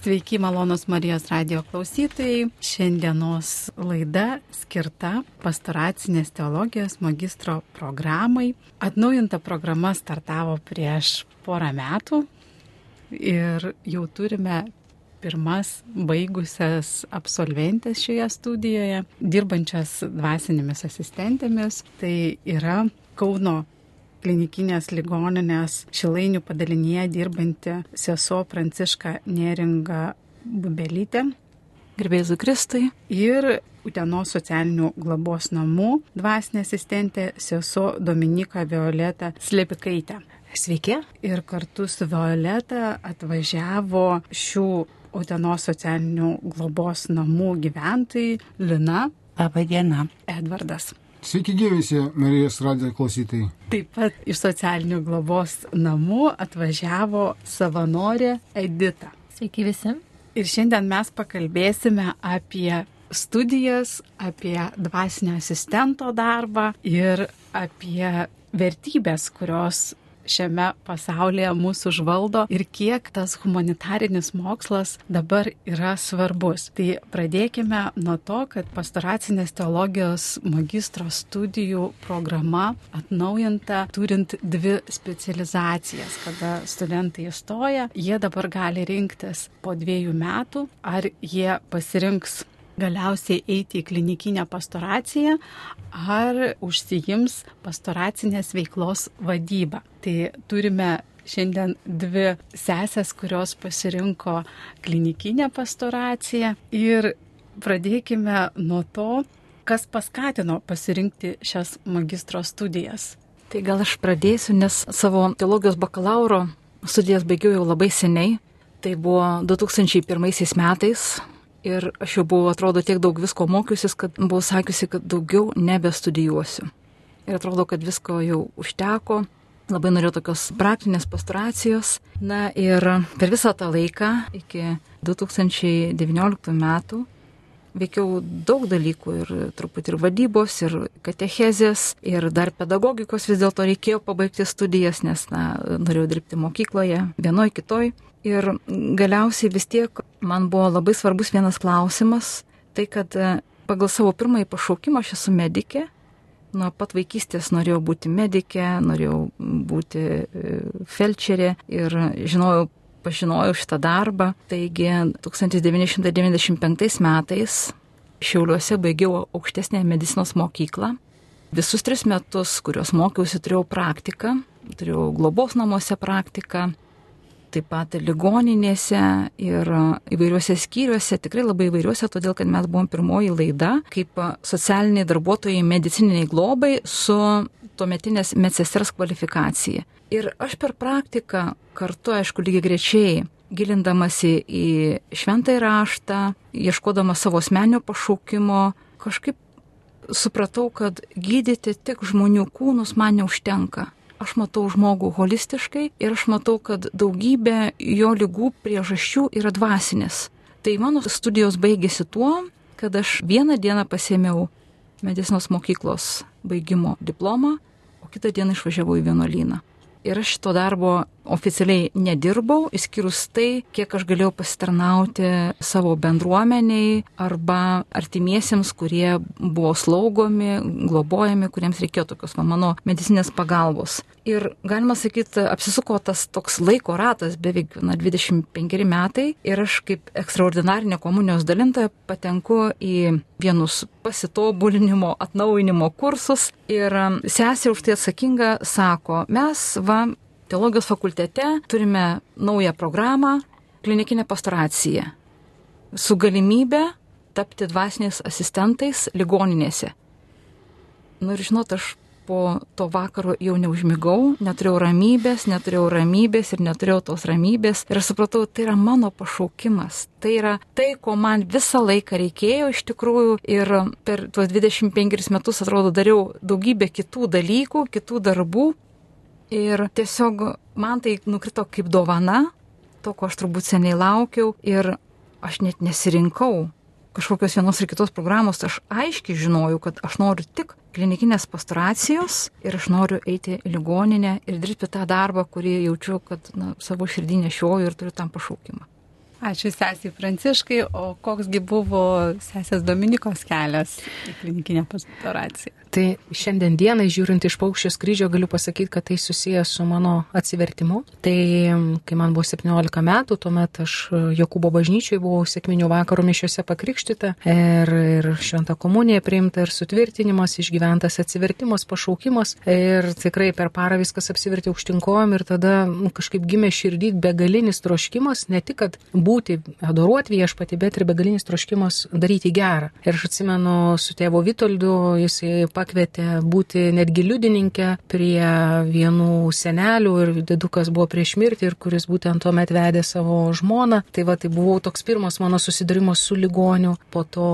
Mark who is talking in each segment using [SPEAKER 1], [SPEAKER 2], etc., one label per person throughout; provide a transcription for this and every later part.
[SPEAKER 1] Sveiki, malonus Marijos radijo klausytojai. Šiandienos laida skirta pastoracinės teologijos magistro programai. Atnaujinta programa startavo prieš porą metų ir jau turime pirmas baigusias absolventės šioje studijoje, dirbančias dvasinėmis asistentėmis. Tai yra Kauno klinikinės ligoninės Šilainių padalinyje dirbanti sesuo Pranciška Neringa Bubelytė.
[SPEAKER 2] Garbė Jėzui Kristui.
[SPEAKER 1] Ir Utenos socialinių globos namų dvasinė asistentė sesuo Dominika Violeta Slepikaitė.
[SPEAKER 2] Sveiki.
[SPEAKER 1] Ir kartu su Violeta atvažiavo šių Utenos socialinių globos namų gyventojai Lina.
[SPEAKER 2] Labą dieną.
[SPEAKER 1] Edvardas.
[SPEAKER 3] Sveiki gyvisi, Marijos radijo klausytojai.
[SPEAKER 1] Taip pat iš socialinių globos namų atvažiavo savanorė Edita.
[SPEAKER 2] Sveiki visi.
[SPEAKER 1] Ir šiandien mes pakalbėsime apie studijas, apie dvasinio asistento darbą ir apie vertybės, kurios šiame pasaulyje mūsų užvaldo ir kiek tas humanitarinis mokslas dabar yra svarbus. Tai pradėkime nuo to, kad pastoracinės teologijos magistro studijų programa atnaujinta, turint 2 specializacijas. Kada studentai įstoja, jie dabar gali rinktis po 2 metų, ar jie pasirinks galiausiai eiti į klinikinę pastoraciją ar užsiims pastoracinės veiklos vadybą. Tai turime šiandien 2 sesės, kurios pasirinko klinikinę pastoraciją ir pradėkime nuo to, kas paskatino pasirinkti šias magistro studijas.
[SPEAKER 2] Tai gal aš pradėsiu, nes savo teologijos bakalauro studijas baigiau jau labai seniai. Tai buvo 2001 metais. Ir aš jau buvau, atrodo, tiek daug visko mokiusis, kad buvau sakiusi, kad daugiau nebestudijuosiu. Ir atrodo, kad visko jau užteko. Labai norėjau tokios praktinės pastoracijos. Na ir per visą tą laiką, iki 2019 metų, veikiau daug dalykų ir truputį ir vadybos, ir katechezės, ir dar pedagogikos vis dėlto reikėjo pabaigti studijas, nes norėjau dirbti mokykloje, vienoj, kitoj. Ir galiausiai vis tiek man buvo labai svarbus vienas klausimas, tai kad pagal savo pirmąjį pašaukimą aš esu medikė. Nuo pat vaikystės norėjau būti medikė, norėjau būti felčerė ir pažinojau šitą darbą. Taigi 1995 metais Šiauliuose baigiau aukštesnę medicinos mokyklą. Visus 3 metus, kuriuos mokiausi, turėjau praktiką, turėjau globos namuose praktiką. Taip pat ligoninėse ir įvairiuose skyriuose, tikrai labai įvairiuose, todėl kad mes buvom pirmoji laida kaip socialiniai darbuotojai medicininiai globai su tuometinės medsesters kvalifikacija. Ir aš per praktiką kartu, aišku, lygiai grečiai, gilindamasi į šventąjį raštą, ieškodama savo asmeninio pašaukimo, kažkaip supratau, kad gydyti tik žmonių kūnus man neužtenka. Aš matau žmogų holistiškai ir aš matau, kad daugybė jo ligų priežasčių yra dvasinės. Tai mano studijos baigėsi tuo, kad aš vieną dieną pasiėmiau medicinos mokyklos baigimo diplomą, o kitą dieną išvažiavau į vienuolyną. Ir aš šito darbo oficialiai nedirbau, išskyrus tai, kiek aš galėjau pasitarnauti savo bendruomeniai arba artimiesiems, kurie buvo slaugomi, globojami, kuriems reikėjo tokios mano medicinės pagalbos. Ir galima sakyti, apsisuko tas toks laiko ratas, beveik 25 metai, ir aš kaip ekstraordinarinė komunijos dalintoja patenku į vienus pasitobulinimo, atnaujinimo kursus. Ir sesė už tai atsakinga sako, mes teologijos fakultete turime naują programą, klinikinę pastoraciją, su galimybė tapti dvasiniais asistentais ligoninėse. Ir žinot, aš po to vakaro jau neužmigau, neturėjau ramybės ir neturėjau tos ramybės. Ir aš supratau, tai yra mano pašaukimas. Tai yra tai, ko man visą laiką reikėjo iš tikrųjų. Ir per tuos 25 metus, atrodo, dariau daugybę kitų dalykų, kitų darbų. Ir tiesiog man tai nukrito kaip dovana, to, ko aš turbūt seniai laukiau. Ir aš net nesirinkau kažkokios vienos ir kitos programos. Aš aiškiai žinojau, kad aš noriu tik klinikinės pastoracijos ir aš noriu eiti į ligoninę ir dirbti tą darbą, kurį jaučiu, kad savo širdį nešioju ir turiu tam pašaukimą.
[SPEAKER 1] Ačiū sesiai Pranciškai, o koksgi buvo sesės Dominikos kelias į klinikinę pastoraciją?
[SPEAKER 4] Tai šiandien dienai, žiūrint iš Paukščio skrydžio, galiu pasakyti, kad tai susijęs su mano atsivertimu. Tai kai man buvo 17 metų, tuomet aš Jokūbo bažnyčioje buvau sekminių vakaro mišiose pakrikštyta ir šventą komuniją priimta ir sutvirtinimas, išgyventas atsivertimas, pašaukimas ir tikrai per parą viskas apsivertė aukštyn kojom ir tada kažkaip gimė širdį begalinis troškimas, ne tik, kad būti, adoruoti viešpatį, bet ir begalinis troškimas daryti gerą. Ir aš atsimenu su tėvo Vitoldu, jisai pakvietė būti netgi liudininkė prie vienų senelių ir didukas buvo prieš mirtį ir kuris būtent tuomet vedė savo žmoną. Tai tai buvo toks pirmas mano susidūrimas su ligoniu. Po to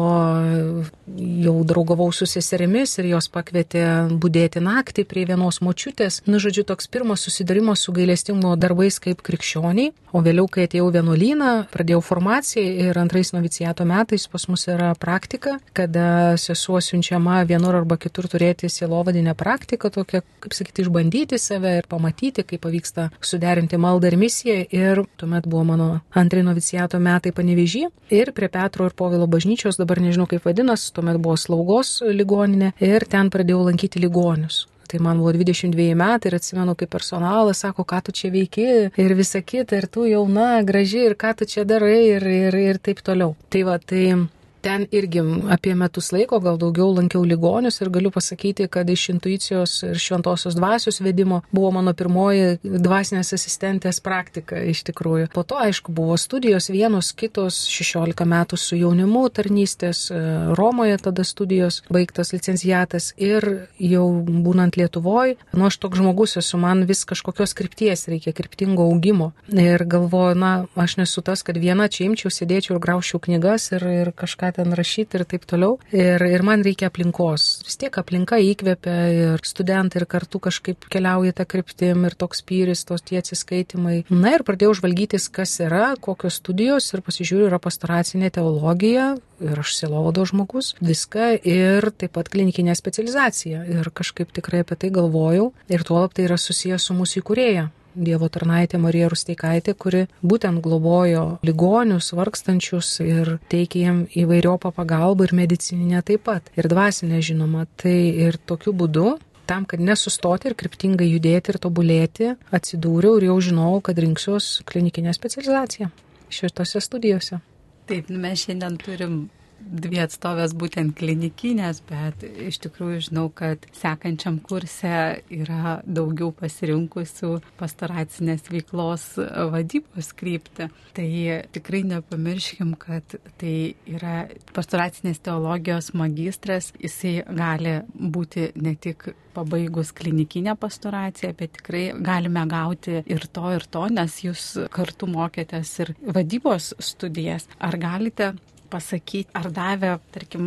[SPEAKER 4] jau draugavau su seserimis ir jos pakvietė budėti naktį prie vienos močiutės. Žodžiu, toks pirmas susidūrimas su gailestingumo darbais kaip krikščioniai. O vėliau, kai atėjau vienuolyną, pradėjau formaciją ir antrais noviciato metais pas mus yra praktika, kada sesuo siunčiama vienur arba kitur turėti sielovadinę praktiką, tokią, kaip sakyti, išbandyti save ir pamatyti, kaip pavyksta suderinti maldą ir misiją. Ir tuomet buvo mano antrai noviciato metai Panevėžy ir prie Petro ir Povilo bažnyčios, dabar nežinau kaip vadinas, tuomet buvo slaugos ligoninė ir ten pradėjau lankyti ligonius. Tai man buvo 22 metai ir atsimenu, kaip personalas sako, ką tu čia veiki ir visa kita, ir tu jauna, graži, ir ką tu čia darai ir taip toliau. Tai ten irgi apie metus laiko, gal daugiau lankiau ligonius ir galiu pasakyti, kad iš intuicijos ir šventosios dvasios vedimo buvo mano pirmoji dvasinės asistentės praktika iš tikrųjų. Po to, aišku, buvo studijos vienos, kitos, 16 metų su jaunimu tarnystės, Romoje tada studijos, baigtas licenciatas ir jau būnant Lietuvoj, aš toks žmogus esu, man vis kažkokios krypties reikia, kryptingo augimo. Ir galvoju, aš nesu tas, kad viena čia imčiau, sėdėčiau ir grauščiau knygas ir kažką ten rašyti ir taip toliau. Ir man reikia aplinkos. Vis tiek aplinka įkvepia ir studentai ir kartu kažkaip keliauja tą kryptim ir toks pyris, tie atsiskaitimai. Ir pradėjau žvalgytis, kas yra, kokios studijos ir pasižiūriu, yra pastoracinė teologija ir aš sielovado žmogus, viską ir taip pat klinikinė specializacija. Ir kažkaip tikrai apie tai galvojau ir tuolab tai yra susijęs su mūsų įkūrėja. Dievo tarnaitė Marija Rusteikaitė, kuri būtent globojo ligonius, vargstančius ir teikė jiem įvairiopą pagalbą ir medicininę taip pat. Ir dvasinę, žinoma. Tai ir tokiu būdu, tam, kad nesustoti ir kryptingai judėti ir tobulėti, atsidūriau ir jau žinojau, kad rinksiuos klinikinę specializaciją šitose studijose.
[SPEAKER 1] Taip, mes šiandien turim 2 atstovės būtent klinikinės, bet iš tikrųjų žinau, kad sekančiam kurse yra daugiau pasirinkusių pastoracinės veiklos vadybos kryptį. Tai tikrai nepamirškim, kad tai yra pastoracinės teologijos magistras, jisai gali būti ne tik pabaigus klinikinę pastoraciją, bet tikrai galime gauti ir to, nes jūs kartu mokėtės ir vadybos studijas. Ar galite pasakyti, ar davė, tarkim,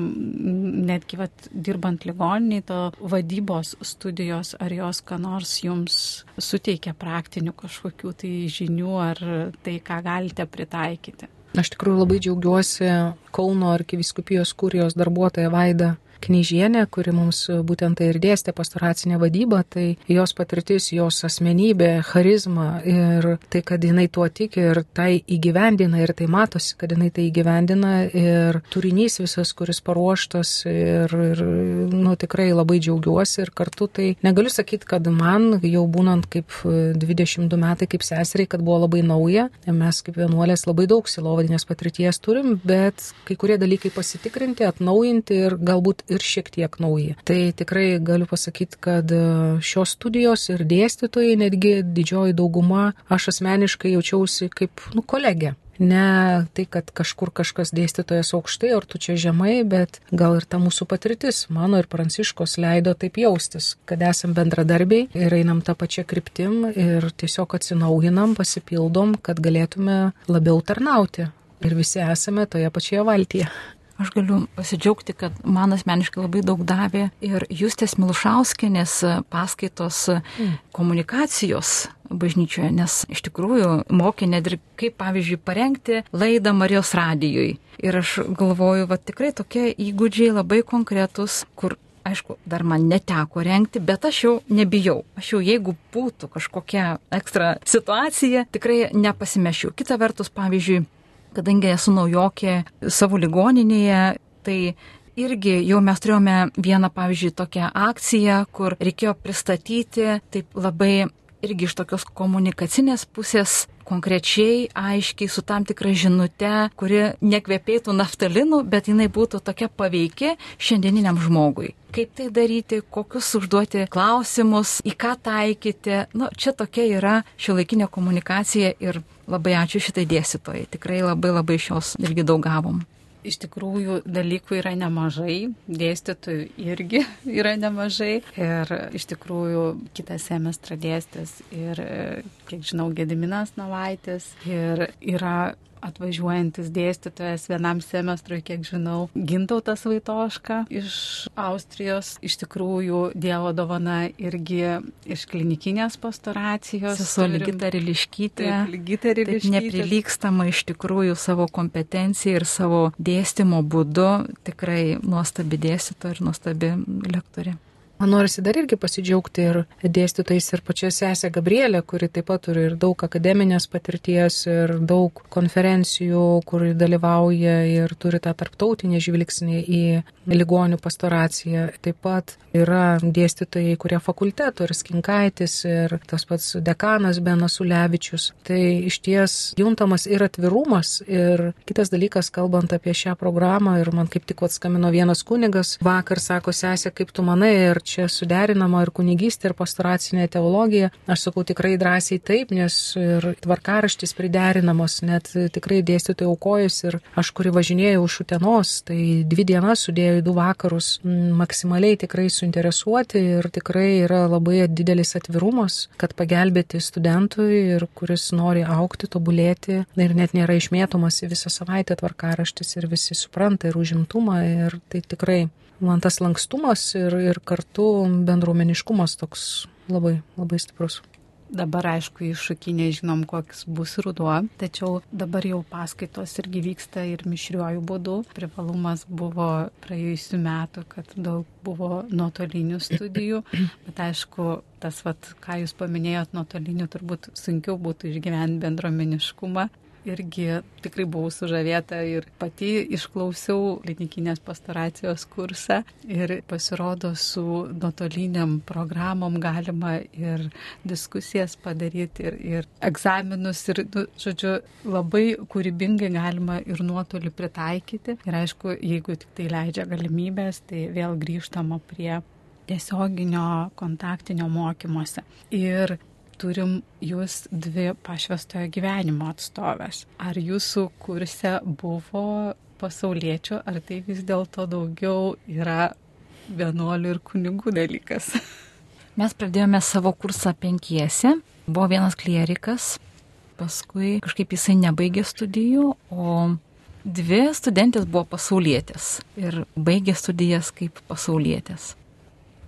[SPEAKER 1] netgi dirbant ligoniniai, to vadybos studijos, ar jos ką nors jums suteikia praktinių kažkokių tai žinių, ar tai, ką galite pritaikyti?
[SPEAKER 4] Aš tikrųjų labai džiaugiuosi Kauno arkivyskupijos kurijos darbuotoja Vaida Knyžienė, kuri mums būtent tai ir dėstė pastoracinę vadybą, tai jos patirtis, jos asmenybė, charizma ir tai, kad jinai tuo tiki ir tai įgyvendina ir tai matosi, kad jinai tai įgyvendina ir turinys visas, kuris paruoštas ir tikrai labai džiaugiuosi ir kartu tai negaliu sakyti, kad man jau būnant kaip 22 metai kaip seseriai, kad buvo labai nauja, mes kaip vienuolės labai daug sielovadinės patirties turim, bet kai kurie dalykai pasitikrinti, atnaujinti ir galbūt ir šiek tiek nauji. Tai tikrai galiu pasakyti, kad šios studijos ir dėstytojai, netgi didžioji dauguma, aš asmeniškai jaučiausi kaip kolegė. Ne tai, kad kažkur kažkas dėstytojas aukštai, ar tu čia žemai, bet gal ir ta mūsų patirtis, mano ir Pranciškos leido taip jaustis, kad esam bendradarbiai ir einam tą pačią kryptim ir tiesiog atsinaujinam, pasipildom, kad galėtume labiau tarnauti. Ir visi esame toje pačioje valtyje.
[SPEAKER 2] Aš galiu pasidžiaugti, kad man asmeniškai labai daug davė ir Justės Milušauskienės paskaitos komunikacijos bažnyčioje, nes iš tikrųjų mokė net ir kaip, pavyzdžiui, parengti laidą Marijos radijui. Ir aš galvoju, tikrai tokie įgūdžiai labai konkretus, kur, aišku, dar man neteko rengti, bet aš jau nebijau. Aš jau, jeigu būtų kažkokia ekstra situacija, tikrai nepasimešiu. Kita vertus, pavyzdžiui, kadangi esu naujokė savo ligoninėje, tai irgi jau mes turėjome vieną, pavyzdžiui, tokią akciją, kur reikėjo pristatyti taip labai irgi iš tokios komunikacinės pusės konkrečiai, aiškiai, su tam tikra žinute, kuri nekvepėtų naftalinu, bet jinai būtų tokia paveiki šiandieniniam žmogui. Kaip tai daryti, kokius užduoti klausimus, į ką taikyti. Čia tokia yra šiuolaikinė komunikacija ir labai ačiū šitai dėstytojai. Tikrai labai iš jos irgi daug gavom.
[SPEAKER 1] Iš tikrųjų, dalykų yra nemažai, dėstytojų irgi yra nemažai ir iš tikrųjų kitą semestrą dėstys ir, kiek žinau, Gediminas Navaitis ir yra atvažiuojantis dėstytojas vienam semestrui, kiek žinau, Gintautas Vaitoška iš Austrijos. Iš tikrųjų, Dievo dovana irgi iš klinikinės pastoracijos.
[SPEAKER 2] Sesuo Ligita Riliškytė. Taip neprilygstama iš tikrųjų savo kompetencijai ir savo dėstymo būdu. Tikrai nuostabi dėstytoja ir nuostabi lektorė.
[SPEAKER 4] Man norisi dar irgi pasidžiaugti ir dėstytojais ir pačia sesė Gabrielė, kuri taip pat turi ir daug akademinės patirties ir daug konferencijų, kur dalyvauja ir turi tą tarptautinį žvilgsnį į ligonių pastoraciją. Taip pat yra dėstytojai, kurie fakulteto ir Skinkaitis ir tas pats dekanas Benas Ulevičius. Tai iš ties juntamas ir atvirumas ir kitas dalykas, kalbant apie šią programą, ir man kaip tik atskambino vienas kunigas vakar, sako, sesė, kaip tu manai, ir čia suderinama ir kunigystė, ir pastoracinė teologija. Aš sakau tikrai drąsiai taip, nes ir tvarkaraštis priderinamos, net tikrai dėstytojai aukojus ir aš, kuri važinėjau iš Utenos, tai 2 dienas sudėjau į 2 vakarus, maksimaliai tikrai suinteresuoti ir tikrai yra labai didelis atvirumas, kad pagelbėti studentui ir kuris nori augti, tobulėti ir net nėra išmėtomas į visą savaitę tvarkaraštis ir visi supranta ir užimtumą ir tai tikrai man tas lankstumas ir kartu bendruomeniškumas toks labai stiprus.
[SPEAKER 1] Dabar, aišku, iššūkį nežinom, koks bus ruduo, tačiau dabar jau paskaitos irgi vyksta ir mišriuoju būdu. Privalumas buvo praėjusių metų, kad daug buvo nuotolinių studijų, bet aišku, tas, ką jūs paminėjot, nuotolinių turbūt sunkiau būtų išgyventi bendruomeniškumą. Irgi tikrai buvau sužavėta ir pati išklausiau klinikinės pastoracijos kursą ir pasirodo su nuotoliniam programom galima ir diskusijas padaryti ir egzaminus ir, žodžiu, labai kūrybingai galima ir nuotolį pritaikyti. Ir aišku, jeigu tik tai leidžia galimybės, tai vėl grįžtama prie tiesioginio kontaktinio mokymosi. Ir turim jūs 2 pašvęstojo gyvenimo atstovės. Ar jūsų kurse buvo pasauliečių, ar tai vis dėlto daugiau yra vienuolių ir kunigų dalykas?
[SPEAKER 2] Mes pradėjome savo kursą 5. Buvo vienas klierikas, paskui kažkaip jisai nebaigė studijų, o 2 studentės buvo pasaulietės ir baigė studijas kaip pasaulietės.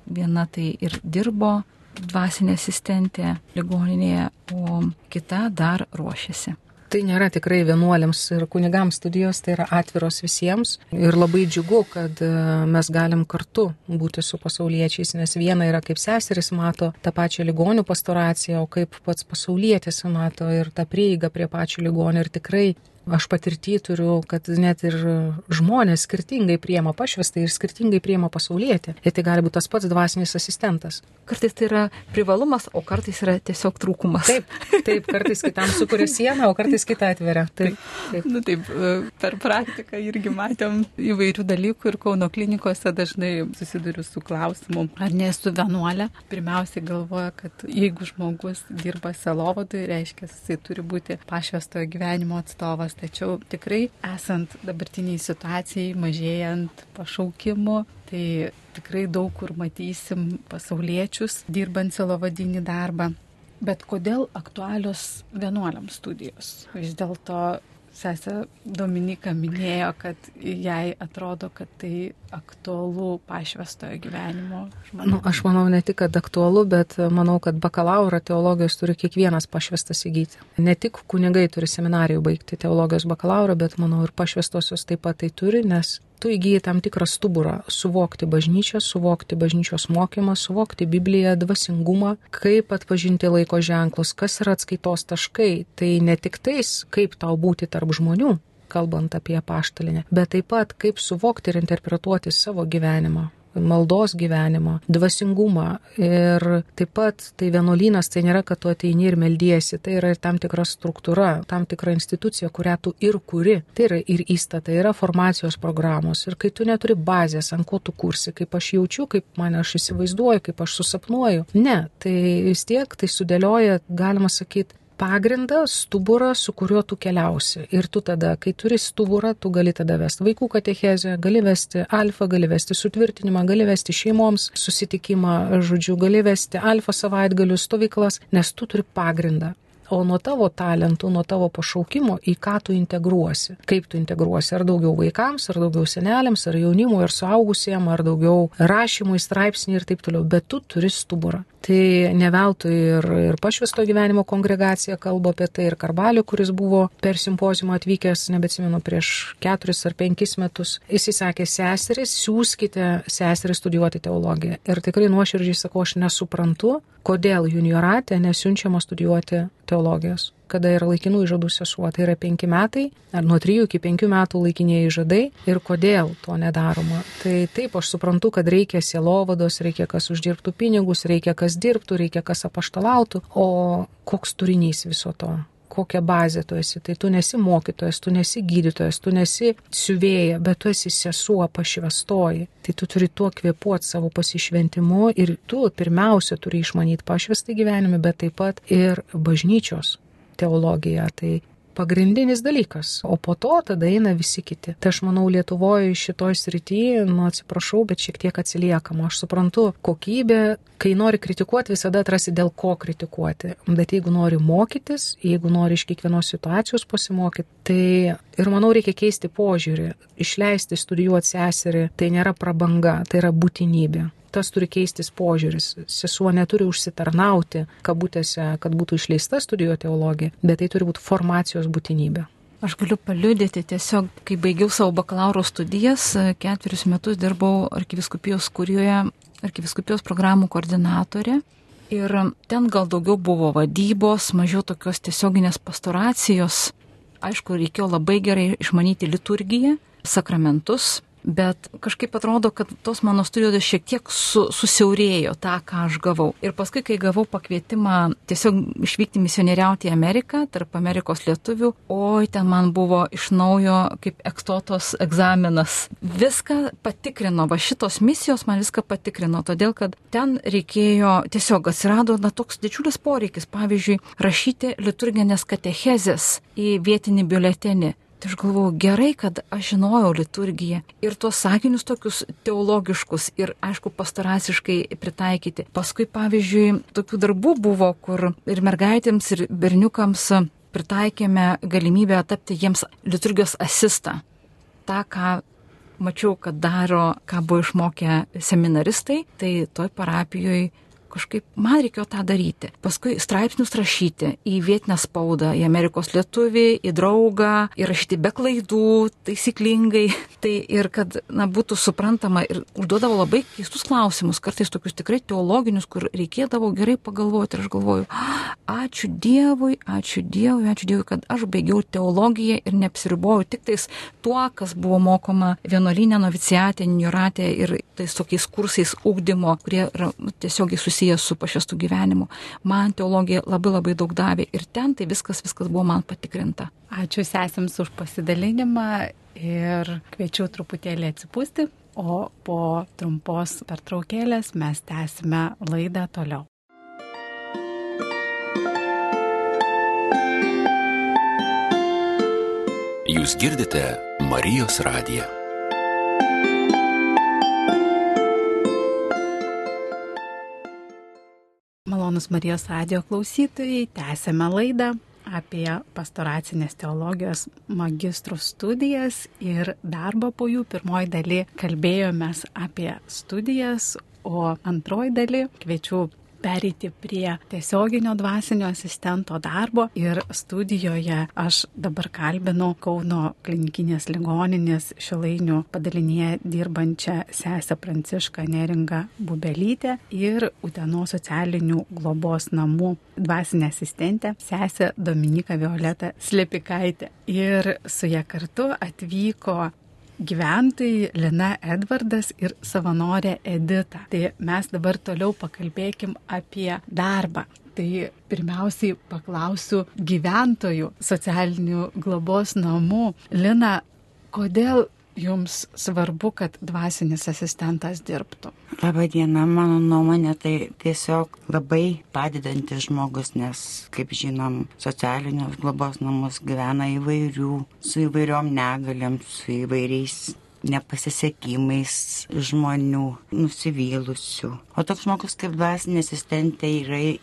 [SPEAKER 2] Viena tai ir dirbo dvasinė asistentė ligoninėje, o kita dar ruošiasi.
[SPEAKER 4] Tai nėra tikrai vienuoliams ir kunigams studijos, tai yra atviros visiems ir labai džiugu, kad mes galim kartu būti su pasauliečiais, nes viena yra kaip seseris mato tą pačią ligonių pastoraciją, o kaip pats pasaulietis mato ir tą prieigą prie pačių ligonių ir tikrai aš patirtį turiu, kad net ir žmonės skirtingai priima pašvestą ir skirtingai priima pasaulietį. Ir tai gali būti tas pats dvasinis asistentas.
[SPEAKER 2] Kartais tai yra privalumas, o kartais yra tiesiog trūkumas.
[SPEAKER 4] Taip, kartais kitam sukuria sieną, o kartais kitą atveria. Taip.
[SPEAKER 1] Taip, per praktiką irgi matėm įvairių dalykų ir Kauno klinikose dažnai susiduriu su klausimu, ar nesu vienuolė. Pirmiausiai galvoja, kad jeigu žmogus dirba sielovadui, reiškia, jisai turi būti pašvestojo gyvenimo atstovas. Tačiau tikrai esant dabartiniai situacijai, mažėjant pašaukimų, tai tikrai daug kur matysim pasauliečius dirbant sielovadinį darbą. Bet kodėl aktualios vienuoliams studijos? Vis dėlto sesė Dominika minėjo, kad jai atrodo, kad tai aktualu pašvestojo gyvenimo žmonėms.
[SPEAKER 4] Aš manau ne tik, kad aktualu, bet manau, kad bakalaurą teologijos turi kiekvienas pašvestas įgyti. Ne tik kunigai turi seminarijų baigti teologijos bakalaurą, bet manau ir pašvestosios taip pat tai turi, nes tu įgyji tam tikrą stuburą suvokti bažnyčią, suvokti bažnyčios mokymą, suvokti Bibliją, dvasingumą, kaip atpažinti laiko ženklus, kas yra atskaitos taškai. Tai ne tik tais, kaip tau būti tarp žmonių, kalbant apie apaštalinę, bet taip pat kaip suvokti ir interpretuoti savo gyvenimą, maldos gyvenimą, dvasingumą. Ir taip pat tai vienuolynas tai nėra, kad tu ateini ir meldiesi, tai yra ir tam tikra struktūra, tam tikra institucija, kurią tu ir kuri. Tai yra ir įstatai, yra formacijos programos. Ir kai tu neturi bazės, ant ko tu kursi, kaip aš jaučiu, kaip mane aš įsivaizduoju, kaip aš susapnuoju. Ne, tai vis tiek tai sudėlioja, galima sakyti, pagrindą, stuburą, su kuriuo tu keliausi. Ir tu tada, kai turi stuburą, tu gali tada vesti vaikų katechezę, gali vesti alfa, gali vesti sutvirtinimą, gali vesti šeimoms susitikimą, žodžiu, gali vesti alfa savaitgalių stovyklas, nes tu turi pagrindą. O nuo tavo talentų, nuo tavo pašaukimo, į ką tu integruosi. Kaip tu integruosi, ar daugiau vaikams, ar daugiau seneliams, ar jaunimui, ar suaugusiem, ar daugiau rašymui, straipsnį ir taip toliau. Bet tu turi stuburą. Tai ne veltui ir Pašvęsto gyvenimo kongregacija kalba apie tai, ir Karbalio, kuris buvo per simpoziumą atvykęs, nebeatsimenu, prieš 4 ar 5 metus. Jis sakė, seseris, siųskite seseris studijuoti teologiją. Ir tikrai nuoširdžiai sakau, aš nesuprantu, kodėl juniorate nesiunčiama studijuoti teologijos, kada yra laikinų įžadų sesuo. Tai yra 5 metai, ar nuo 3 iki 5 metų laikinieji įžadai, ir kodėl to nedaroma. Tai taip, aš suprantu, kad reikia sielovados, reikia kas uždirbtų pinigus, reikia kas dirbtų, reikia kas apaštalautų, o koks turinys viso to? Kokią bazę tu esi? Tai tu nesi mokytojas, tu nesi gydytojas, tu nesi siuvėja, bet tu esi sesuo pašvęstoji. Tai tu turi tuo kvėpuoti savo pasišventimu ir tu pirmiausia turi išmanyti pašvęstą gyvenimą, bet taip pat ir bažnyčios teologiją. Tai pagrindinis dalykas, o po to tada eina visi kiti. Tai aš manau, Lietuvoje šitoj srityje, atsiprašau, bet šiek tiek atsiliekama. Aš suprantu, kokybė, kai nori kritikuoti, visada atrasi dėl ko kritikuoti. Bet jeigu nori mokytis, jeigu nori iš kiekvienos situacijos pasimokyti, tai ir manau reikia keisti požiūrį. Išleisti studijuoti seserį, tai nėra prabanga, tai yra būtinybė. Tas turi keistis požiūris. Sesuo neturi užsitarnauti, kabutėse, kad būtų išleista studijuoti teologiją, bet tai turi būti formacijos būtinybė.
[SPEAKER 2] Aš galiu paliudyti, tiesiog, kai baigiau savo bakalauro studijas, 4 metus dirbau arkivyskupijos kurijoje, arkivyskupijos programų koordinatorė. Ir ten gal daugiau buvo vadybos, mažiau tokios tiesioginės pastoracijos. Aišku, reikėjo labai gerai išmanyti liturgiją, sakramentus, bet kažkaip atrodo, kad tos mano studijos šiek tiek susiaurėjo tą, ką aš gavau. Ir paskui, kai gavau pakvietimą tiesiog išvykti misionieriauti į Ameriką, tarp Amerikos lietuvių, oi, ten man buvo iš naujo kaip ekstotos egzaminas. Viską patikrino, va šitos misijos man viską patikrino, todėl kad ten reikėjo, tiesiog atsirado toks didžiulis poreikis, pavyzdžiui, rašyti liturginės katechezės į vietinį biuletenį. Tai aš galvojau, gerai, kad aš žinojau liturgiją ir tuos sakinius tokius teologiškus ir, aišku, pastorasiškai pritaikyti. Paskui, pavyzdžiui, tokių darbų buvo, kur ir mergaitėms, ir berniukams pritaikėme galimybę tapti jiems liturgijos asistą. Ta, ką mačiau, kad daro, ką buvo išmokę seminaristai, tai toj parapijoje kažkaip man reikėjo tą daryti. Paskui straipsnius rašyti į vietinę spaudą, į Amerikos lietuvį, į draugą, įrašyti be klaidų, taisyklingai. Tai ir kad būtų suprantama ir užduodavo labai keistus klausimus, kartais tokius tikrai teologinius, kur reikėdavo gerai pagalvoti. Ir aš galvoju, ačiū Dievui, kad aš baigiau teologiją ir neapsiriboju tik tais tuo, kas buvo mokoma vienuolyne, noviciate, juniorate ir tais tokiais kursais ugdymo, kurie yra tiesiogiai susijęs su pašvęstu gyvenimu. Man teologija labai daug davė ir ten tai viskas buvo man patikrinta.
[SPEAKER 1] Ačiū sesėms už pasidalinimą ir kviečiu truputėlį atsipūsti, o po trumpos pertraukėlės mes tęsime laidą toliau.
[SPEAKER 5] Jūs girdite Marijos radiją.
[SPEAKER 1] Malonus Marijos radijo klausytojai, tęsėme laidą apie pastoracinės teologijos magistrų studijas ir darbą po jų. Pirmoji daly kalbėjomės apie studijas, o antroji daly kviečiu pereiti prie tiesioginio dvasinio asistento darbo ir studijoje aš dabar kalbinu Kauno klinikinės ligoninės Šilainių padalinyje dirbančią sesę Prancišką Neringą Bubelytę ir Utenos socialinių globos namų dvasinę asistentę sesę Dominiką Violetą Slepikaitę. Ir su ja kartu atvyko gyventojai Lina Edvardas ir savanorė Edita. Tai mes dabar toliau pakalbėkim apie darbą. Tai pirmiausiai paklausiu gyventojų socialinių globos namų. Lina, kodėl jums svarbu, kad dvasinis asistentas dirbtų?
[SPEAKER 6] Labadiena, mano nuomonė tai tiesiog labai padedantis žmogus, nes, kaip žinom, socialinius globos namus gyvena su įvairiom negaliam, su įvairiais nepasisekimais žmonių, nusivylusių. O toks žmogus kaip dvasinė asistentė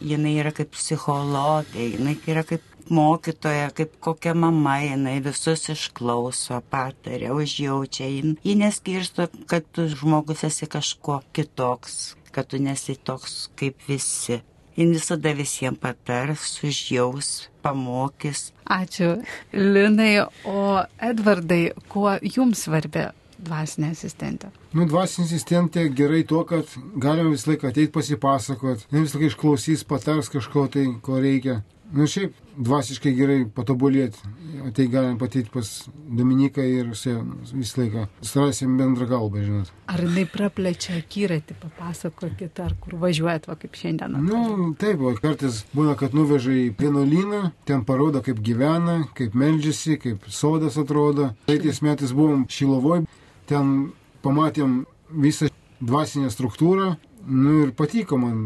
[SPEAKER 6] jinai yra kaip psichologė, jinai yra kaip mokytoja, kaip kokia mama, jinai visus išklauso, pataria, užjaučia. Ji neskirsto, kad tu žmogus esi kažko kitoks, kad tu nesi toks kaip visi. Ji visada visiems patars, užjaus, pamokys.
[SPEAKER 1] Ačiū, Linai. O Edvardai, kuo jums svarbi dvasinė asistentė?
[SPEAKER 3] Dvasinė asistentė gerai tuo, kad galima visą laiką ateiti pasipasakot, visą laiką išklausys, patars kažko tai, ko reikia. Šiaip dvasiškai gerai patobulėti. Tai galim pateikti pas Dominiką ir visą laiką surasim bendrą kalbą, žinot.
[SPEAKER 1] Ar jinai praplečia akiratį, papasakokit, ar kur važiuojat, va kaip šiandien?
[SPEAKER 3] Taip, kartais būna, kad nuveža į vienuolyną, ten parodo, kaip gyvena, kaip meldžiasi, kaip sodas atrodo. Tais metais buvom Šiluvoj, ten pamatėm visą dvasinę struktūrą, ir patiko man.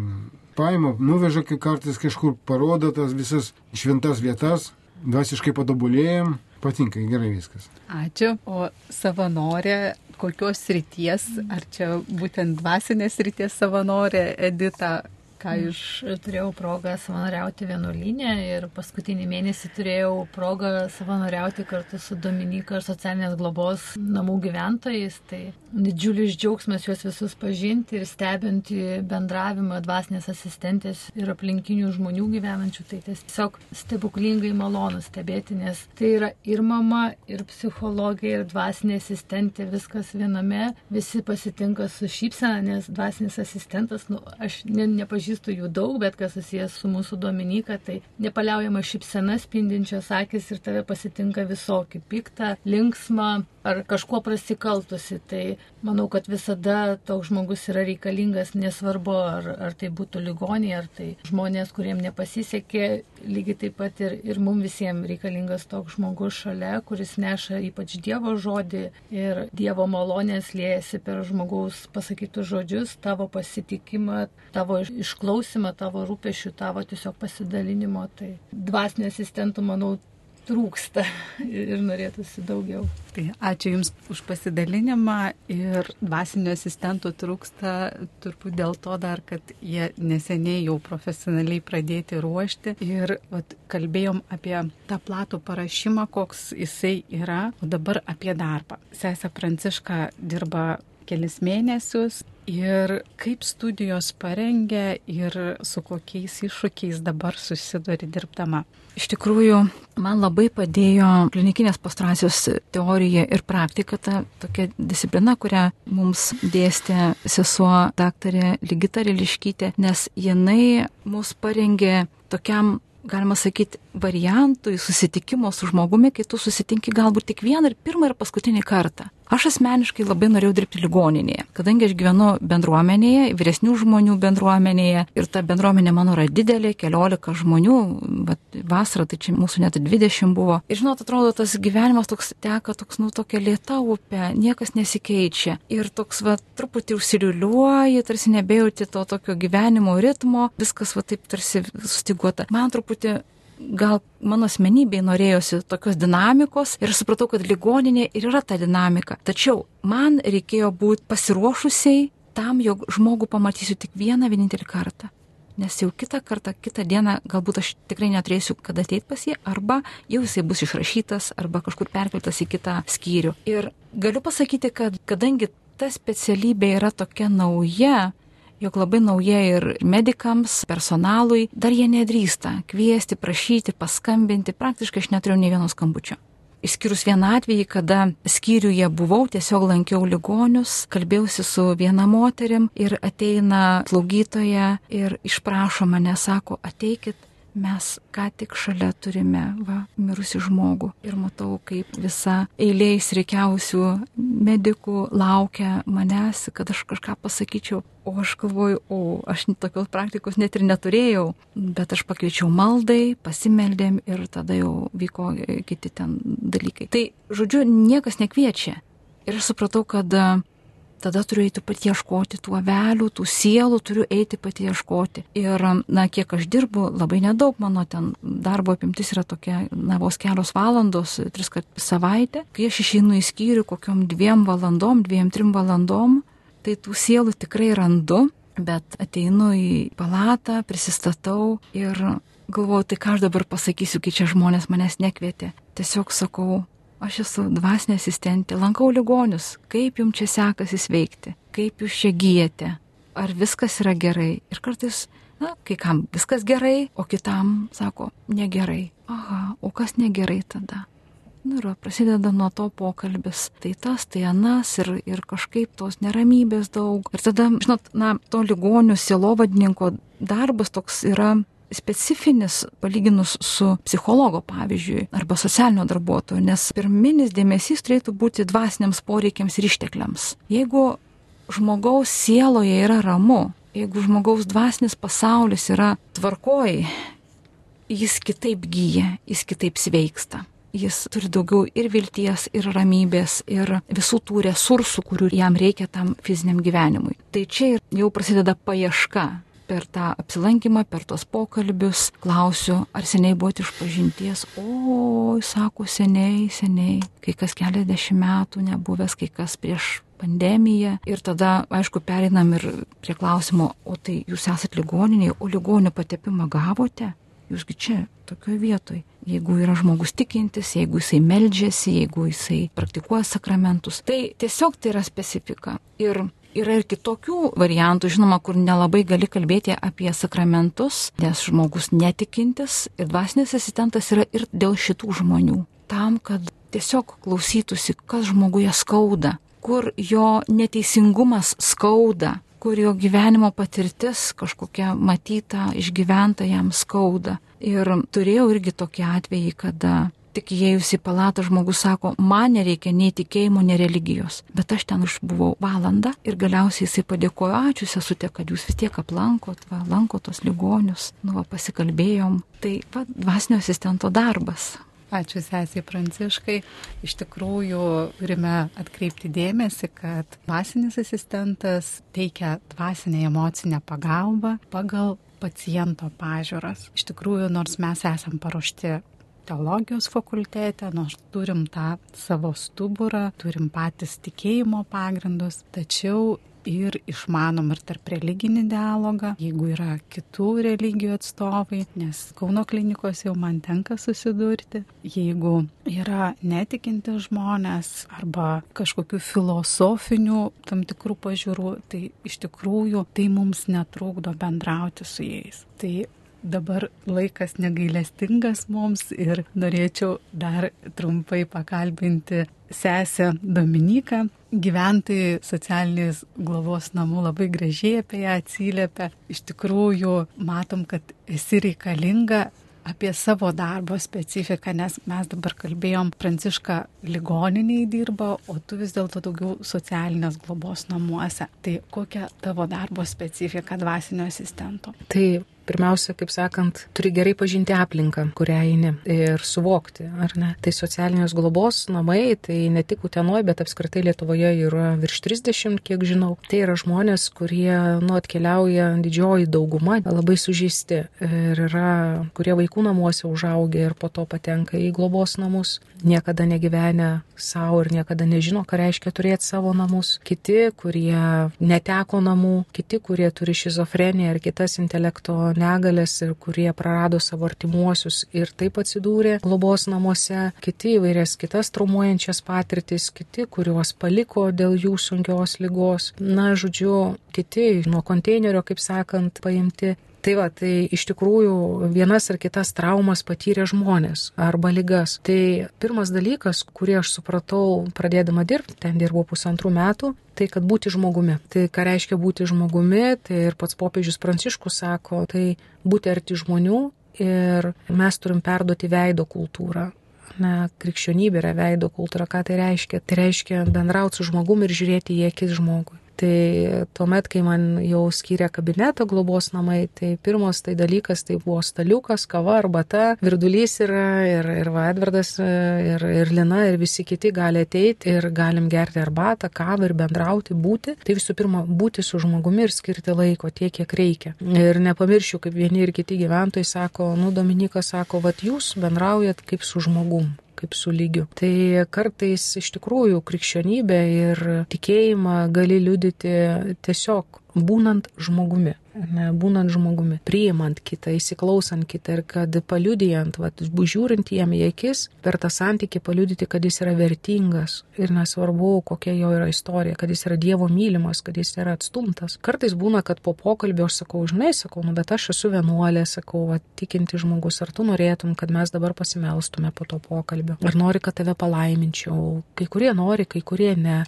[SPEAKER 3] Paima, nuveža kartais kažkur, parodo tas visas šventas vietas, dvasiškai patobulėjom, patinka, gerai viskas.
[SPEAKER 1] Ačiū. O savanorė, kokios srities, ar čia būtent dvasinės srities savanorė Edita?
[SPEAKER 7] Aš turėjau progą savanoriauti vienuolyne ir paskutinį mėnesį turėjau progą savanoriauti kartu su Dominika ir socialinės globos namų gyventojais. Tai didžiulis džiaugsmas juos visus pažinti ir stebinti bendravimą dvasinės asistentės ir aplinkinių žmonių gyvenančių. Tai tiesiog stebuklingai malonu stebėti, nes tai yra ir mama, ir psichologija, ir dvasinė asistentė, viskas viename. Visi pasitinka su šypsena, nes dvasinis asistentas, aš nepažįstu jų daug, bet kas susijęs su mūsų Dominika, tai nepaliaujama šypsena, spindinčios akis ir tave pasitinka visokį piktą, linksmą ar kažkuo prasikaltusi. Tai manau, kad visada toks žmogus yra reikalingas, nesvarbu, ar tai būtų ligoniai, ar tai žmonės, kuriems nepasisekė, lygiai taip pat ir mums visiems reikalingas toks žmogus šalia, kuris neša ypač Dievo žodį ir Dievo malonės liejasi per žmogaus pasakytus žodžius, tavo pasitikimą, tavo išklausimą, tavo rūpešių, tavo tiesiog pasidalinimo. Tai dvasinio asistentų, manau, trūksta ir norėtųsi daugiau.
[SPEAKER 1] Tai ačiū Jums už pasidalinimą ir dvasinio asistentų trūksta turbūt dėl to dar, kad jie neseniai jau profesionaliai pradėti ruošti ir kalbėjom apie tą platų parašymą, koks jisai yra, o dabar apie darbą. Sesė Pranciška dirba kelis mėnesius ir kaip studijos parengia ir su kokiais iššūkiais dabar susiduri dirbdama.
[SPEAKER 2] Iš tikrųjų, man labai padėjo klinikinės pastoracijos teorija ir praktika, ta tokia disciplina, kurią mums dėstė sesuo daktarė Ligita Riliškytė, nes jinai mus parengė tokiam, galima sakyti, variantui susitikimo su žmogumi, kai tu susitinki galbūt tik vieną ir pirmą ir paskutinį kartą. Aš asmeniškai labai norėjau dirbti ligoninėje, kadangi aš gyvenu bendruomenėje, vyresnių žmonių bendruomenėje ir ta bendruomenė mano yra didelė, 14 žmonių, vasarą tai čia mūsų net 20 buvo. Ir žinot, atrodo, tas gyvenimas toks teka, tokia lėta upė, niekas nesikeičia ir toks truputį užsiliuliuoji, tarsi nebejauti to tokio gyvenimo ritmo, viskas taip tarsi sustiguota. Man truputį gal mano asmenybei norėjosi tokios dinamikos ir supratau, kad ligoninė ir yra ta dinamika. Tačiau man reikėjo būti pasiruošusiai tam, jog žmogų pamatysiu tik vienintelį kartą. Nes jau kitą dieną galbūt aš tikrai neturėsiu kada ateiti pas jį, arba jau jisai bus išrašytas, arba kažkur perkeltas į kitą skyrių. Ir galiu pasakyti, kad kadangi ta specialybė yra tokia nauja, jog labai nauja ir medikams, personalui, dar jie nedrįsta kviesti, prašyti, paskambinti, praktiškai aš neturėjau nei vieno skambučio. Išskyrus vieną atvejį, kada skyriuje buvau, tiesiog lankiau ligonius, kalbėjausi su viena moterim ir ateina slaugytoja ir išprašo mane, sako, ateikit, mes ką tik šalia turime mirusį žmogų. Ir matau, kaip visa eilė įsirikiausių medikų laukia manęs, kad aš kažką pasakyčiau. O aš galvoju, aš tokios praktikos net ir neturėjau, bet aš pakviečiau maldai, pasimeldėm ir tada jau vyko kiti ten dalykai. Tai, žodžiu, niekas nekviečia. Ir aš supratau, kad tada turiu eiti pati ieškoti tų avelių, tų sielų, turiu eiti pati ieškoti. Ir, kiek aš dirbu, labai nedaug, mano ten darbo apimtis yra tokia, vos kelios valandos, 3 kartus per savaitę. Kai aš išeinu į skyrių kokiom 2 valandom, 2-3 valandom, tai tų sielų tikrai randu, bet ateinu į palatą, prisistatau ir galvoju, tai ką aš dabar pasakysiu, kai čia žmonės manęs nekvietė. Tiesiog sakau, aš esu dvasinė asistentė, lankau ligonius, kaip jums čia sekasi sveikti, kaip jūs čia gyjate, ar viskas yra gerai. Ir kartais, kai kam viskas gerai, o kitam sako, negerai. Aha, o kas negerai tada? Ir prasideda nuo to pokalbis. Tai tas, tai anas ir kažkaip tos neramybės daug. Ir tada, žinot, to ligonių sielovadininko darbas toks yra specifinis palyginus su psichologo, pavyzdžiui, arba socialinio darbuotojo, nes pirminis dėmesys turėtų būti dvasiniams poreikiams ir ištekliams. Jeigu žmogaus sieloje yra ramu, jeigu žmogaus dvasinis pasaulis yra tvarkoj, jis kitaip gyja, jis kitaip sveiksta. Jis turi daugiau ir vilties, ir ramybės, ir visų tų resursų, kurių jam reikia tam fiziniam gyvenimui. Tai čia jau prasideda paieška. Per tą apsilankymą, per tos pokalbius, klausiu, ar seniai buvote išpažinties. Sako, seniai, kai kas keliasdešimt metų nebuvęs, kai kas prieš pandemiją. Ir tada, aišku, pereinam ir prie klausimo, o tai jūs esat ligoninėje, o ligonio patepimą gavote? Jūsgi čia, tokioje vietoje. Jeigu yra žmogus tikintis, jeigu jisai meldžiasi, jeigu jisai praktikuoja sakramentus, tai tiesiog tai yra specifika. Ir yra ir kitokių variantų, žinoma, kur nelabai gali kalbėti apie sakramentus, nes žmogus netikintis ir dvasinis asistentas yra ir dėl šitų žmonių. Tam, kad tiesiog klausytųsi, kas žmoguje skauda, kur jo neteisingumas skauda, kur jo gyvenimo patirtis kažkokia matyta, išgyventa jam skauda. Ir turėjau irgi tokį atvejį, kada tik įėjus į palatą žmogus sako, man nereikia nei tikėjimo, nei religijos. Bet aš ten išbuvau valandą ir galiausiai jisai padėkojo, ačiū sesutė, kad jūs vis tiek aplankot, lankot tos ligonius, pasikalbėjom. Tai dvasinio asistento darbas.
[SPEAKER 1] Ačiū sesiai Pranciškai. Iš tikrųjų turime atkreipti dėmesį, kad dvasinis asistentas teikia dvasinę emocinę pagalbą pagal paciento pažiūras. Iš tikrųjų, nors mes esam paruošti teologijos fakultete, nors turim tą savo stuburą, turim patys tikėjimo pagrindus, tačiau ir išmanom ir tarp religinį dialogą, jeigu yra kitų religijų atstovai, nes Kauno klinikos jau man tenka susidurti, jeigu yra netikinti žmonės arba kažkokių filosofinių tam tikrų pažiūrų, tai iš tikrųjų tai mums netrukdo bendrauti su jais. Tai dabar laikas negailestingas mums ir norėčiau dar trumpai pakalbinti sesę Dominiką. Gyventojai socialinės globos namų labai gražiai apie ją atsiliepia. Iš tikrųjų matom, kad esi reikalinga apie savo darbo specifiką, nes mes dabar kalbėjom, Pranciška ligoniniai dirba, o tu vis dėlto daugiau socialinės globos namuose. Tai kokia tavo darbo specifika dvasinio asistento?
[SPEAKER 4] Tai pirmiausia, kaip sakant, turi gerai pažinti aplinką, kurią eini ir suvokti, ar ne. Tai socialinės globos namai, tai ne tik Utenoje, bet apskritai Lietuvoje yra virš 30, kiek žinau. Tai yra žmonės, kurie atkeliauja didžioji dauguma, labai sužeisti ir yra, kurie vaikų namuose užaugę ir po to patenka į globos namus, niekada negyvenę savo ir niekada nežino, ką reiškia turėti savo namus. Kiti, kurie neteko namų, kiti, kurie turi šizofreniją ar kitas intelekto negalės ir kurie prarado savo artimuosius ir taip atsidūrė globos namuose, kiti įvairias kitas traumuojančias patirtis, kiti, kuriuos paliko dėl jų sunkios ligos. Na, žodžiu, kiti nuo konteinerio, kaip sakant, paimti. Tai va, tai iš tikrųjų vienas ar kitas traumas patyrė žmonės arba ligas. Tai pirmas dalykas, kurį aš supratau pradėdama dirbti, ten dirbau 1,5 metų, tai kad būti žmogumi. Tai ką reiškia būti žmogumi, tai ir pats popiežius Pranciškus sako, tai būti arti žmonių ir mes turim perduoti veido kultūrą. Na, krikščionybė yra veido kultūra. Ką tai reiškia? Tai reiškia bendrauti su žmogumi ir žiūrėti į akis žmogui. Tai tuomet, kai man jau skyrė kabinetą globos namai, tai pirmas tai dalykas, tai buvo staliukas, kava, arbata, virdulys yra ir Edvardas, ir Lina, ir visi kiti gali ateiti ir galim gerti arbatą, kavą ir bendrauti, būti. Tai visų pirma, būti su žmogumi ir skirti laiko tiek, kiek reikia. Ir nepamiršiu, kaip vieni ir kiti gyventojai sako, Dominykas sako, vat jūs bendraujat kaip su žmogum, kaip su lygiu. Tai kartais iš tikrųjų krikščionybę ir tikėjimą gali liudyti tiesiog būnant žmogumi. Būnant žmogumi, priimant kitą, įsiklausant kitą ir kad paliudijant, žiūrint jam į akis, per tą santykį paliudyti, kad jis yra vertingas ir nesvarbu, kokia jo yra istorija, kad jis yra Dievo mylimas, kad jis yra atstumtas. Kartais būna, kad po pokalbio aš sakau, bet aš esu vienuolė, sakau, tikinti žmogus, ar tu norėtum, kad mes dabar pasimelstume po to pokalbio, ar nori, kad tave palaiminčiau. Kai kurie nori, kai kurie ne.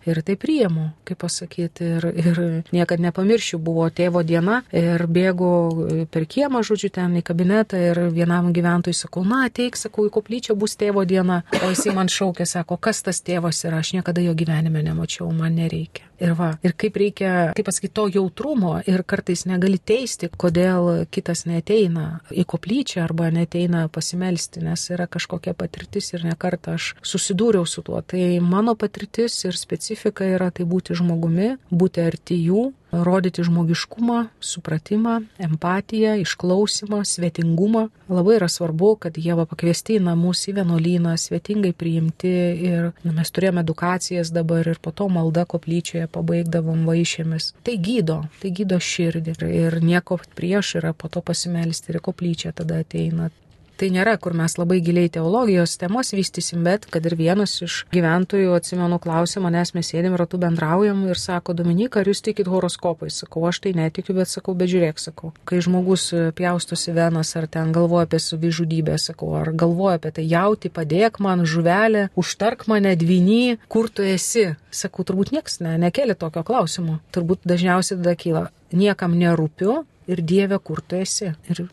[SPEAKER 4] Ir tai priimu, kaip pasakyti, ir niekad nepamiršiu, buvo tėvo diena ir bėgu per kiemą, žodžiu, ten į kabinetą ir vienam gyventojui sakau, ateik, sakau, į koplyčią bus tėvo diena, o jisai man šaukė, sako, kas tas tėvas yra, aš niekada jo gyvenime nemačiau, man nereikia. Ir kaip reikia, kaip pasakyti, to jautrumo ir kartais negali teisti, kodėl kitas neateina į koplyčią arba neateina pasimelsti, nes yra kažkokia patirtis ir nekartą aš susidūriau su tuo. Tai mano patirtis ir specifika yra tai būti žmogumi, būti arti jų, rodyti žmogiškumą, supratimą, empatiją, išklausimą, svetingumą. Labai yra svarbu, kad jie pakviesti į namus, į vienuolyną, svetingai priimti ir mes turėjome edukacijas dabar ir po to malda koplyčioje pabaigdavom vaišėmis. Tai gydo širdį ir nieko prieš yra po to pasimelsti ir koplyčia tada ateina. Tai nėra, kur mes labai giliai teologijos temos vystysim, bet kad ir vienas iš gyventojų, atsimenu, klausė manęs, mes sėdėm ratu bendraujam ir sako, Dominyka, ar jūs tikit horoskopais? Sakau, aš tai netikiu, bet sakau, bet žiūrėk, sakau. Kai žmogus pjaustosi venas ar ten galvoja apie savižudybę, sakau, ar galvoja apie tai, jauti, padėk man, žuvelė, užtark mane, dvyny, kur tu esi? Sakau, turbūt nieks nekėlė tokio klausimo. Turbūt dažniausiai tada kyla, niekam nerūpiu ir Dieve, kur tu esi? Ir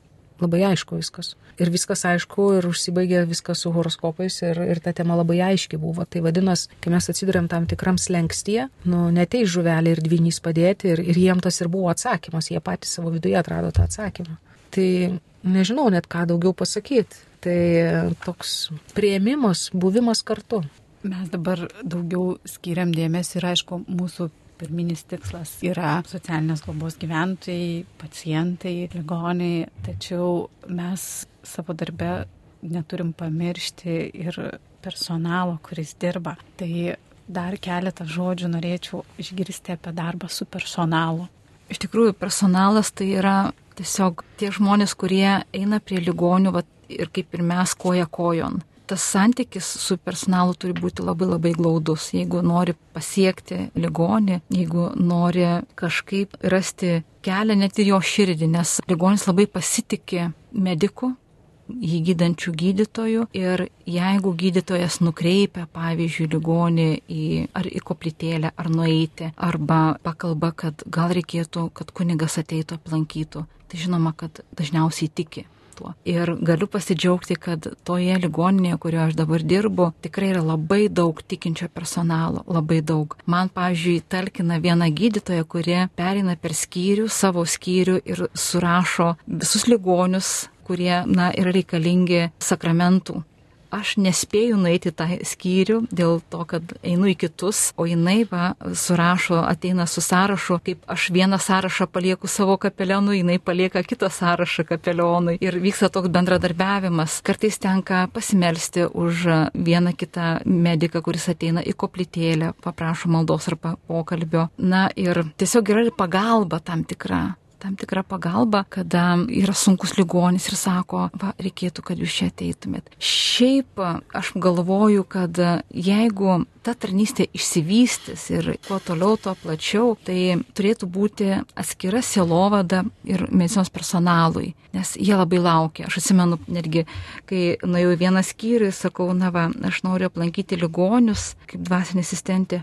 [SPEAKER 4] labai aišku viskas. Ir viskas aišku ir užsibaigė viskas su horoskopais ir ta tema labai aiški buvo. Tai vadinas, kai mes atsidurėm tam tikram slengstyje, neteis žuvelė ir dvynys padėti ir jiem tas ir buvo atsakymas, jie patys savo viduje atrado tą atsakymą. Tai nežinau net ką daugiau pasakyti. Tai toks priėmimas, buvimas kartu.
[SPEAKER 1] Mes dabar daugiau skiriam dėmesį ir aišku, mūsų pirminis tikslas yra socialinės globos gyventojai, pacientai, ligoniai, tačiau mes savo darbe neturim pamiršti ir personalo, kuris dirba. Tai dar keletą žodžių norėčiau išgirsti apie darbą su personalu.
[SPEAKER 2] Iš tikrųjų, personalas tai yra tiesiog tie žmonės, kurie eina prie ligonių ir kaip ir mes koja kojon. Tas santykis su personalu turi būti labai labai glaudus. Jeigu nori pasiekti ligonį, jeigu nori kažkaip rasti kelią net į jo širdį, nes ligonis labai pasitikė mediku, jį gydančių gydytojų ir jeigu gydytojas nukreipia, pavyzdžiui, ligonį ar į koplytėlę, ar nueiti, arba pakalba, kad gal reikėtų, kad kunigas ateitų aplankytų, tai žinoma, kad dažniausiai tiki. Ir galiu pasidžiaugti, kad toje ligoninėje, kurioje aš dabar dirbu, tikrai yra labai daug tikinčio personalo, labai daug. Man, pavyzdžiui, talkina viena gydytoja, kuri pereina per skyrių, savo skyrių ir surašo visus ligonius, kurie, yra reikalingi sakramentų. Aš nespėju nueiti tą skyrių dėl to, kad einu į kitus, o jinai surašo, ateina su sąrašu, kaip aš vieną sąrašą palieku savo kapelionui, jinai palieka kitą sąrašą kapelionui ir vyksta toks bendradarbiavimas. Kartais tenka pasimelsti už vieną kitą mediką, kuris ateina į koplytėlę, paprašo maldos arba pokalbio. Ir tiesiog yra ir pagalba tam tikra. tam tikrą pagalbą, kada yra sunkus ligonis ir sako, va, reikėtų, kad jūs čia ateitumėt. Šiaip aš galvoju, kad jeigu ta tarnystė išsivystys ir kuo toliau, tuo plačiau, tai turėtų būti atskira sielovada ir medicinos personalui, nes jie labai laukia. Aš atsimenu netgi, kai nuėjau į vieną skyrių, sakau, na va, aš noriu aplankyti ligonius kaip dvasinė asistentė.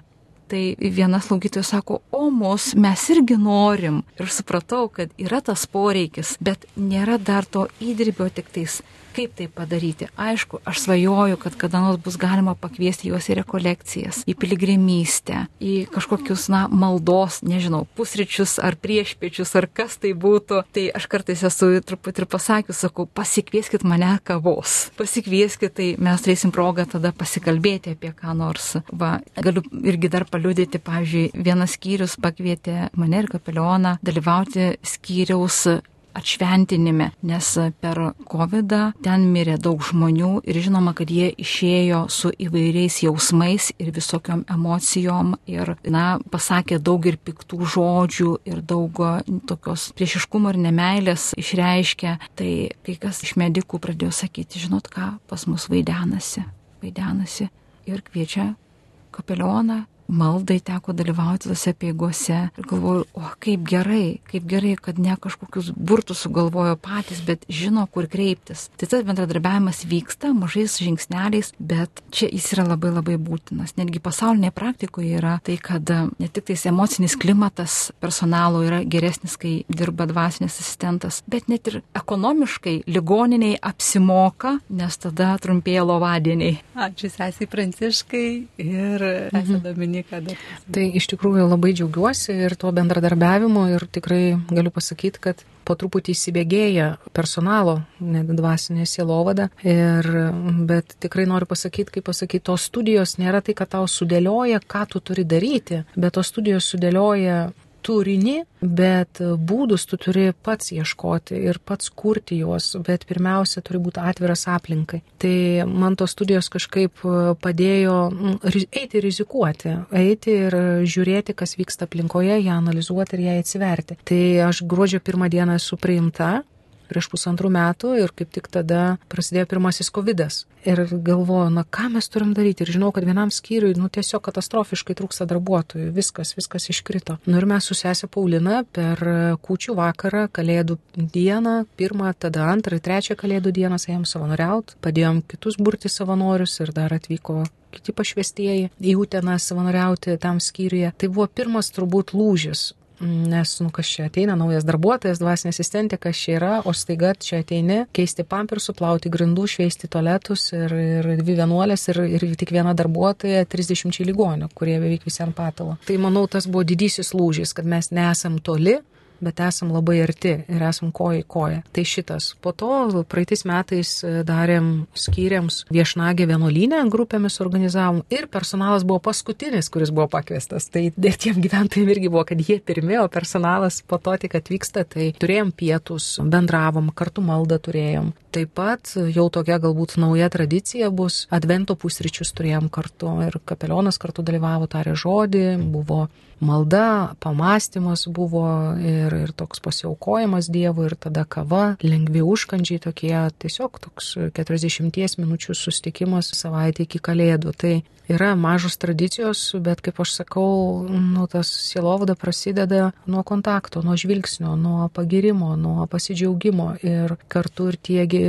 [SPEAKER 2] Tai viena slaugytoja sako, o mes irgi norim. Ir supratau, kad yra tas poreikis, bet nėra dar to įdirbio tik tais. Kaip tai padaryti? Aišku, aš svajoju, kad kada nors bus galima pakviesti juos į rekolekcijas, į piligrimystę, į kažkokius, maldos, nežinau, pusryčius ar priešpiečius, ar kas tai būtų. Tai aš kartais esu truputį ir pasakius, sakau, pasikvieskit mane kavos. Pasikvieskit, tai mes turėsim progą tada pasikalbėti apie ką nors. Va, galiu irgi dar paliudyti, pavyzdžiui, vienas skyrius pakvietė mane ir kapelioną dalyvauti skyriaus atšventinime, nes per COVID ten mirė daug žmonių ir žinoma, kad jie išėjo su įvairiais jausmais ir visokiom emocijom ir, pasakė daug ir piktų žodžių ir daug tokios priešiškumo ir nemeilės išreiškė. Tai kai kas iš medikų pradėjo sakyti, žinot ką, pas mus vaidenasi ir kviečia kapelioną. Maldai teko dalyvauti tose peigose ir galvoju, kaip gerai, kad ne kažkokius burtus sugalvojo patys, bet žino, kur kreiptis. Tai tas bendradarbiavimas vyksta mažais žingsneliais, bet čia jis yra labai labai būtinas. Netgi pasaulinėje praktikoje yra tai, kad ne tik tais emocinis klimatas personalo yra geresnis, kai dirba dvasinis asistentas, bet net ir ekonomiškai ligoniniai apsimoka, nes tada trumpėja lovadieniai.
[SPEAKER 1] Ačiū sesei Pranciškai ir sesė Dominika.
[SPEAKER 4] Tai iš tikrųjų labai džiaugiuosi ir tuo bendradarbiavimu ir tikrai galiu pasakyti, kad po truputį įsibėgėja personalo dvasinė sielovada, bet tikrai noriu pasakyti, tos studijos nėra tai, kad tau sudėlioja, ką tu turi daryti, bet tos studijos sudėlioja turinį, bet būdus tu turi pats ieškoti ir pats kurti juos, bet pirmiausia turi būti atviras aplinkai. Tai man tos studijos kažkaip padėjo eiti rizikuoti, eiti ir žiūrėti, kas vyksta aplinkoje, ją analizuoti ir ją atsiverti. Tai aš gruodžio 1 dieną esu priimta prieš 1,5 metų ir kaip tik tada prasidėjo pirmasis COVID-as. Ir galvoju, ką mes turim daryti. Ir žinau, kad vienam skyriui, tiesiog katastrofiškai trūksta darbuotojų. Viskas iškrito. Ir mes su sese Paulina per kūčių vakarą, Kalėdų dieną, 1, tada 2, 3 Kalėdų dieną ėjom savanoriaut, padėjom kitus burti savanorius ir dar atvyko kiti pašvestieji į Uteną savanoriauti tam skyriuje. Tai buvo pirmas turbūt lūžis. Nes, kas čia ateina, naujas darbuotojas, dvasinė asistentė, kas čia yra, o staiga čia ateini, keisti pampersų, plauti grindų, šveisti tualetus ir 2 vienuolės ir tik viena darbuotoja 30 ligonių, kurie beveik visi ant patalo. Tai manau, tas buvo didysis lūžis, kad mes nesam toli, bet esam labai arti ir esam koja į koją. Tai šitas. Po to praeitais metais darėm skyriams viešnagę vienuolyne, grupėmis organizavom ir personalas buvo paskutinis, kuris buvo pakviestas. Tai tiem gyventojim irgi buvo, kad jie pirmi, o personalas po to tik atvyksta. Tai turėjom pietus, bendravom, kartu maldą turėjom. Taip pat jau tokia galbūt nauja tradicija bus, advento pusryčius turėjom kartu ir kapelionas kartu dalyvavo, tarė žodį, buvo malda, pamąstymas buvo ir toks pasiaukojimas Dievui ir tada kava, lengvi užkandžiai tokie, tiesiog toks 40 minučių susitikimas savaitę iki Kalėdų. Tai yra mažos tradicijos, bet kaip aš sakau, tas sielovada prasideda nuo kontakto, nuo žvilgsnio, nuo pagirimo, nuo pasidžiaugimo ir kartu ir tiegi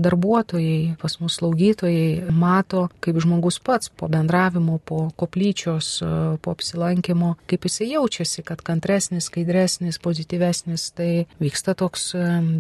[SPEAKER 4] darbuotojai, pas mus slaugytojai mato, kaip žmogus pats po bendravimo, po koplyčios, po apsilankimo, kaip jisai jaučiasi, kad kantresnis, skaidresnis, pozityvesnis, tai vyksta toks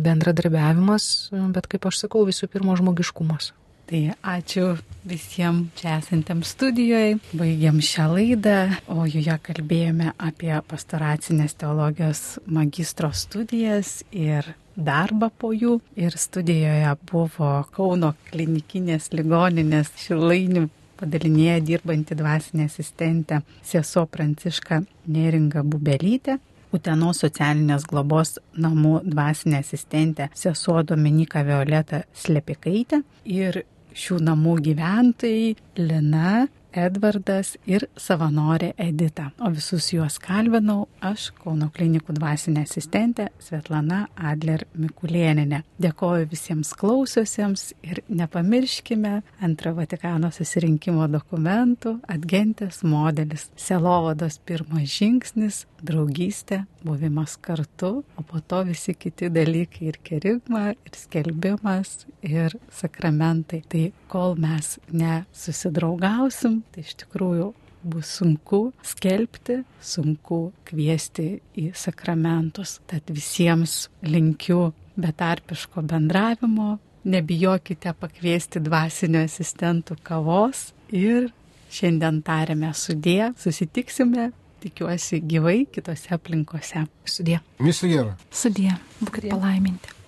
[SPEAKER 4] bendradarbiavimas, bet kaip aš sakau, visų pirma žmogiškumas.
[SPEAKER 1] Tai ačiū visiems čia esantiems studijoje. Baigiam šią laidą, o joje kalbėjome apie pastoracinės teologijos magistro studijas ir darbą po jų. Ir studijoje buvo Kauno klinikinės ligoninės Šilainių padalinėje dirbanti dvasinė asistentė sesuo Pranciška Neringa Bubelytė, Utenos socialinės globos namų dvasinė asistentė sesuo Dominika Violeta Slepikaitė ir šių namų gyventojai Lina, Edvardas ir savanorė Edita. O visus juos kalbinau aš, Kauno klinikų dvasinė asistentė Svetlana Adler Mikulėnienė. Dėkoju visiems klausiusiems ir nepamirškime Antrojo Vatikano susirinkimo dokumentų Adgentės modelis. Sielovados pirmas žingsnis - draugystė, buvimas kartu, o po to visi kiti dalykai ir kerigma, ir skelbimas, ir sakramentai. Tai kol mes nesusidraugausim, tai iš tikrųjų bus sunku skelbti, sunku kviesti į sakramentus. Tad visiems linkiu betarpiško bendravimo, nebijokite pakviesti dvasinio asistentų kavos ir šiandien tariame sudie, susitiksime, tikiuosi gyvai kitose aplinkose.
[SPEAKER 4] Sudie.
[SPEAKER 3] Viso gero.
[SPEAKER 2] Sudie, būkite palaiminti.